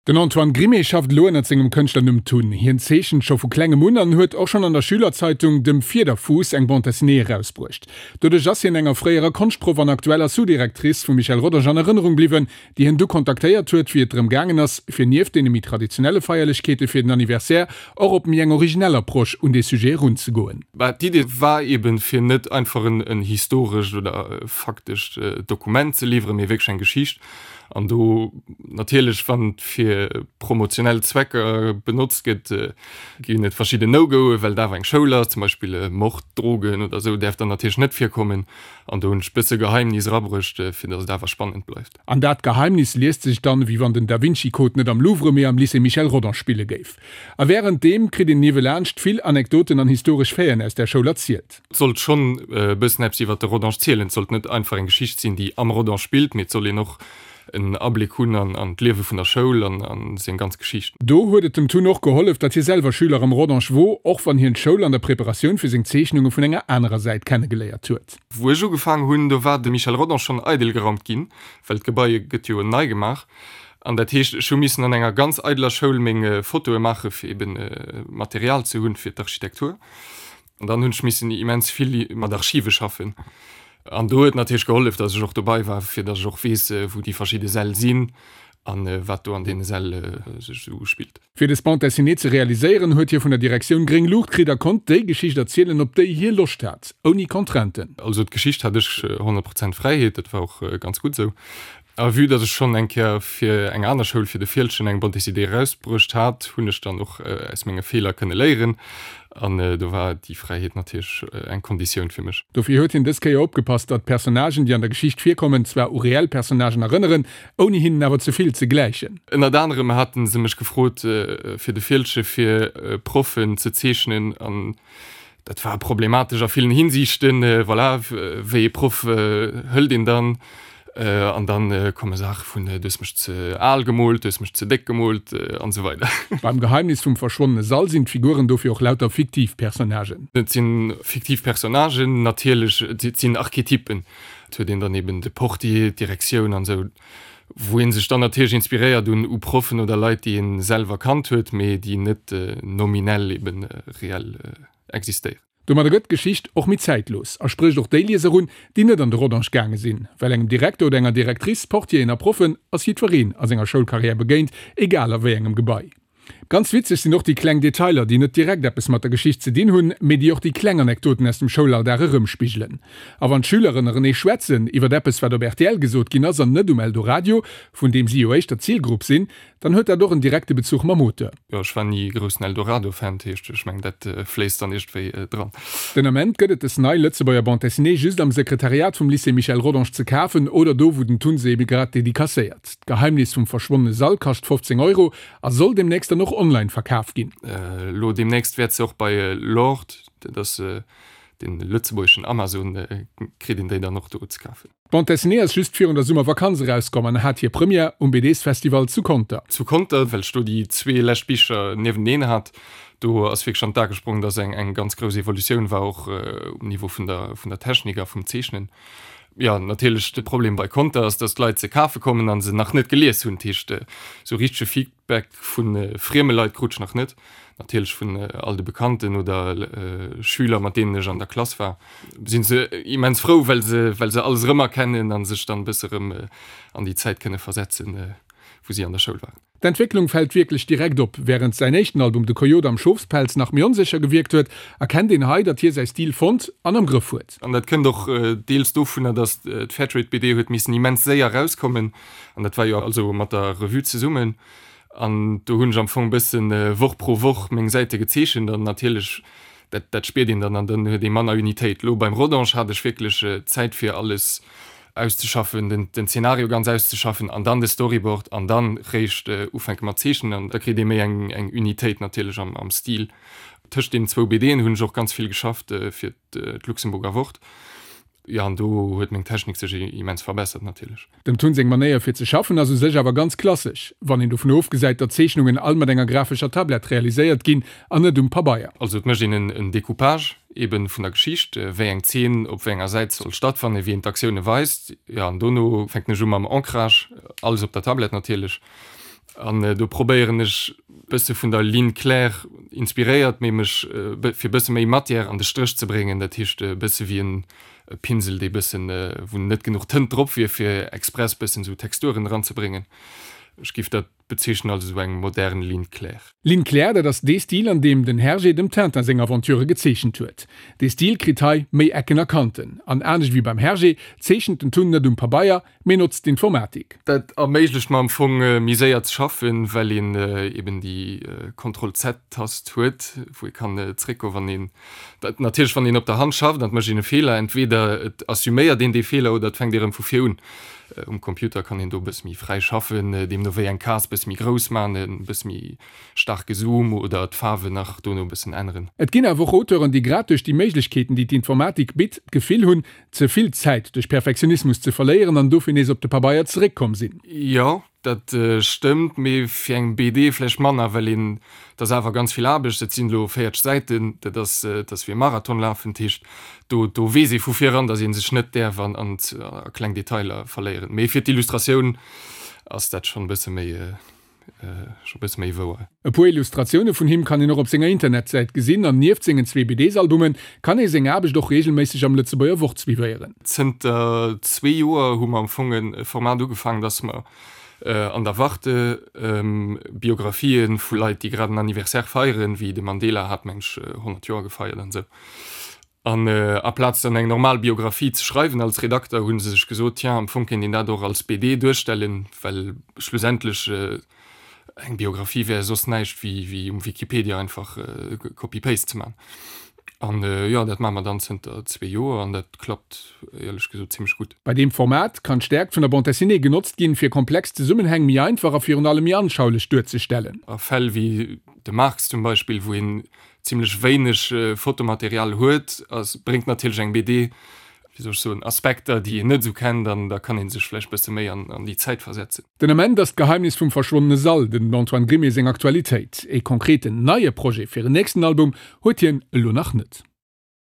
Den Antoine Grimé schafft elo ënnert sengem Kënschtlernumm Tun. Hien zeechent scho vu klengem un an huet och schonn an der Schülerzeitung Dem Fiederfuuss eng Bande dessinée erausbruecht. Doduerch ass hien enger fréierer Konschtproff an aktueller Sous-Directrice vum Michel Rodange an Erënnerung bliwwen, déi hien du kontaktéiert huet, wéi et drëm gaangen ass, fir nieft deene méi traditionelle Feierlechkeete fir den Anniversaire och op méi eng originell Approche un dee Sujet erunzegoen. Bah, d'Idee war eben, fir net einfach en historescht oder faktescht Dokument ze liwweren, mee wierklech eng Geschicht. An do natierlech, wann et fir promotionell Zwecker benotzt gëtt, ginn et verschidden No-Goe well et awer eng Schoul ass, zum Beispill Mord, Drogen oder esou däerf dann natierlech net virkommen. An do hunn ech bësse Geheimnis erabruecht, fir datt et awer spannend bleift. An dat Geheimnis liest sech dann, wéi wann den Da Vinci Code net am Louvre, mee am Lycée Michel Rodange spille géif. A wärenddeem kritt een niewelaanscht vill Anekdoten an historesch Faiten aus där Schoul erzielt. Et sollt schonn e bëssen eppes iwwer de Rodange zielen. Et sollt net einfach eng Geschicht sinn, déi am Rodange spillt, mee et soll een och en Abléck hunn an d'Liewe vun der Schoul an seng ganz Geschicht. Do huet et dem Tun och gehollef, datt hie selwer Schüler am Rodange wor, och wann hien d'Schoul an der Preparatioun fir seng Zeechnunge vun enger anerer Säit kennegeléiert huet. Wou ech ugefaang hunn, do war de Michel Rodange schonn eidel geraumt ginn, well d'Gebai gëtt jo nei gemaach. An dat heescht, ech hu missen an enger ganz eideler Schoul meng Fotoe maache fir eben Material ze hunn fir d'Architektur. An dann hunn ech missen immens vill mat Archive schaffen. An do huet natierlech gehollef, datt ech och dobei war, fir datt ech och weess, wou déi verschidde Säll sinn a wat do an deene Säll sech esou uspillt. Fir des Bande dessinée ze realiséieren, huet hie vun der Direktioun gréng Luucht kritt a konnt déi Geschicht erzielen, op déi hie Loscht hat, ouni Contrainten. Also d'Geschicht hat ech 100 Prozent Fräiheet, dat war och ganz gutt esou. A vue datt ech schonn eng Kéier fir eng aner Schoul, fir de Fieldgen, eng Bande dessinée erausbruecht hat, hunn ech dann och aus menge Feeler kënne léieren. An do war déi Fräiheet natierlech eng Konditioun fir mech. Dofir huet hien dës Kéier opgepasst, datt d'Personnagen, déi an der Geschicht virkommen, zwar u reell Personnagen erënneren, ouni hinnen awer ze vill ze gläichen. Ënnert anerem hate se mech gefrot, fir de Fieldgen fir Proffen ze zeechnen. An Dat war problematesch a villen Hinsiichten. Voilà, wéi ee Proff hëlt een dann? An dann komme Saache vun, du hues mech ze al gemoolt, du hues mech ze déck gemoolt an esou weider. Beim Geheimnis vum verschwonnene Sall sinn d'Figuren dofir och lauter fiktiv Personnagen. Et si fiktiv Personnagen, natierlech, et sinn Archetypen. Et huet een dann eben de Portier, d'Direktioun an esou, wou ee sech dann natierlech inspiréiert un u Proffen oder Leit, déi ee selwer kannt huet, mee déi net nominell eben reell existéieren. Domadder gëtt d'Geschicht och méi zäitlos a sprécht och déi Lieser un, déi net an de Rodange gaange sinn. Well engem Direkter oder enger Directrice, Portieren a Proffen ass jiddwereen a senger Schoulkarriär begéint, egal a wéi engem Gebai. Ganz witzeg sinn och déi kleng Detailer, déi net direkt eppes mat der Geschicht ze dinn hunn, mee déi och déi kleng Anekdoten aus dem Schoulalldag erëmspigelen. A wann d'Schüler ënnerenee schwätzen iwwer eppes, wat op rtl gesot ginn ass an net um Eldoradio, vun deem si jo éischter d'Zilgrupp sinn, Dann huet dat och en direkte Bezuch mam Auteur. Jo, ech war ni groussen Eldorado-Fan, dat heescht, ech mengen, dat fléisst dann iergendwéi dran. Den Ament gëtt et des nei Lëtzebuerger Bande Dessinée just am Sekretariat vum Lycée Michel Rodange ze kafen oder do, wou den Tun se ebe grad dedicacéiert. D'Geheimnis vum verschwonnene Sall kascht 15 Euro a soll demnächst dann och online verkaf ginn. Elo demnächst wäert se och bei Lord, dat ass den lëtzebuergeschen Amazon, kritt een déi dann och do ze kafen. D'Bande Dessinée ass just virun der Summervakanz erauskomm an hat hir Première um BDsfestival zu Conter. Zu Conter, well ech do déi zwee lescht Bicher niewenteneen hat, do ass wierklech an d'A gesprong, dass eng eng ganz grouss Evolutioun war, och um Niveau vun der vun der Technik a vum Zeechnen. Jo, natierlech de Problem bei Conter ass, dass d'Leit se kafe kommen a se nach net gelies hunn. Dat heescht, esou richtege Feedback vu frieme Leit krut ech nach net. Natierlech vun all de Bekannten oder Schüler, mat deenen ech an der Klass war, sinn se immens frou, well se, well se alles erëmerkennen a sech dann e bësse erëm an déi Zäit kënne versetzen, wou si an der Schoul waren. D'Entwécklung fält wierklech direkt op. Wärend säin éischten Album De Coyote am Schofspelz nach méi onsécher gewierkt huet, erkennt een hei, datt hie säi Stil fonnt an am Grëff huet. An dat kënnt och deels dovunner, datt d'Fairtrade-BD huet missen immens séier erauskommen, an dat war jo also mat der Revue zesummen. An do hunn ech am Fong e bëssen Woch pro Woch meng Säite gezeechent an natierlech, dat dat spiert een dann an dann huet ee manner Unitéit. Elo beim Rodange hat ech wierklech Zäit fir alles auszeschaffen, den den Zeenario ganz auszeschaffen an dann de Storyboard an dann réischt ufänke mat zeechnen an da kritt ee méi eng eng Unitéit natierlech am am Stil. Tëscht deenen zwou BDen hunn ech och ganz vill geschafft fir d'Luxemburger Wort. Jo, an do huet meng Technik sech immens verbessert natierlech. Dem Tun seng Manéier fir ze schaffen ass u sech awer ganz klassesch, wann een dovun ofgesäit, datt Zeechnungen all mat enger grafescher Tablett realiséiert ginn an net um Pabeier. Also et mécht een en Decoupage eben vun der Geschicht, wéi eng Zeen op wéi enger Säit soll stattfannen, wéi een d'Aktioune weist. Jo, an dono fänken ech u mam Ancrage, alles op der Tablett natierlech. An do probéieren ech bësse vun der Ligne claire inspiréiert, mee mech fir bësse méi Matière an de Stréch ze bréngen. Dat heescht e bësse wéi en Pinsel, dee bëssen, wou net genuch Tënt drop wier, fir express bëssen esou Texturen eranzebréngen. Ech géif dat bezeechnen als esou eng modern Ligne claire. Ligne claire, dat ass dee Stil, an deem den Hergé dem Tintin seng Aventurë gezeechent huet. Dee Stil kritt hei méi Ecken a Kanten. An anescht ewéi beim Hergé zeechent den Tun net um Pabeier, mee notzt d'Informatik. Dat erméiglecht mer am Fong méi séier ze schaffen, well een eben déi Ctrl-Z-Tast huet, wou ee kann zréckgoen, wann een, natierlech wann een op der Hand schafft an et mécht een e Feeler, entweder et assuméiert een dee Feeler oder et fänkt ee rëm vu vir un. Um Computer kann een do e bësse méi fräi schaffen, deemno wéi eng Case bësse méi grouss man, e bësse méi staarke Zoom oder d'Faarwen nach dono e bëssen änneren. Et ginn awer och Auteuren, déi grad duerch déi Méiglechkeeten, déi d'Informatik bitt, d'Gefill hunn, ze vill Zäit duerch Perfektionismus ze verléieren an dofir nees op de Pabeier zeréckkomm sinn. Jo, dat stëmmt, mee fir eng BD vläicht manner, well een, et ass awer ganz vill Aarbecht, et sinn elo 40 Säiten, dat ass, dat ass wéi e Marathon lafen, dat heescht, do, do weess ee vu viran, datt ee sech net däerf an, an a kleng Detailer verléieren. Mee fir d'Illustratioun ass dat schonn e bësse méi, scho bësse méi wouer. E puer Illustratioune vun him kann een och op senger Internetsäit gesinn an nieft sengen zwee BDs-Albume kann ee seng Aarbecht och reegelméisseg am Lëtzebuerger Wort suivéieren. Zënter zwee Joer hu mer am Fong e Format ugefaangen, dass mer an der Warte Biografië vu Leit, déi grad en Anniversaire feieren, wéi de Mandela hat, meng ech, 100 Joer gefeiert an esou, An aplaz dann eng normal Biographie ze schreiwen als Redakter, hu se sech gesot, tiens, am Fong kéint een dat och als BD duerstellen, well schlussendlech eng Biographie wär soss näischt wéi um Wikipedia einfach Copy-Paste ze man. An jo, dat maache mer dann zënter zwee Joer an dat klappt éierlech gesot zimmlech gutt. Bei deem Format kann d'Stäerkt vun der Bande dessinée genotzt ginn, fir komplex Zesummenhäng méi einfach a virun allem méi anschaulech duerzestellen. A Fäll wéi de Marx zum Beispill, wou een zimlech wéineg Fotomaterial huet, ass, bréngt natierlech eng BD, wéi soll ech soen, Aspekter, déi een net esou kennt an da kann ee sech vläicht bësse méi an an déi Zäit versetzen. Den Ament ass d'Geheimnis vum verschwonnene Sall dem Antoine Grimée seng Aktualitéit. Ee konkreten neie Projet fir en nächsten Album huet hien elo nach net.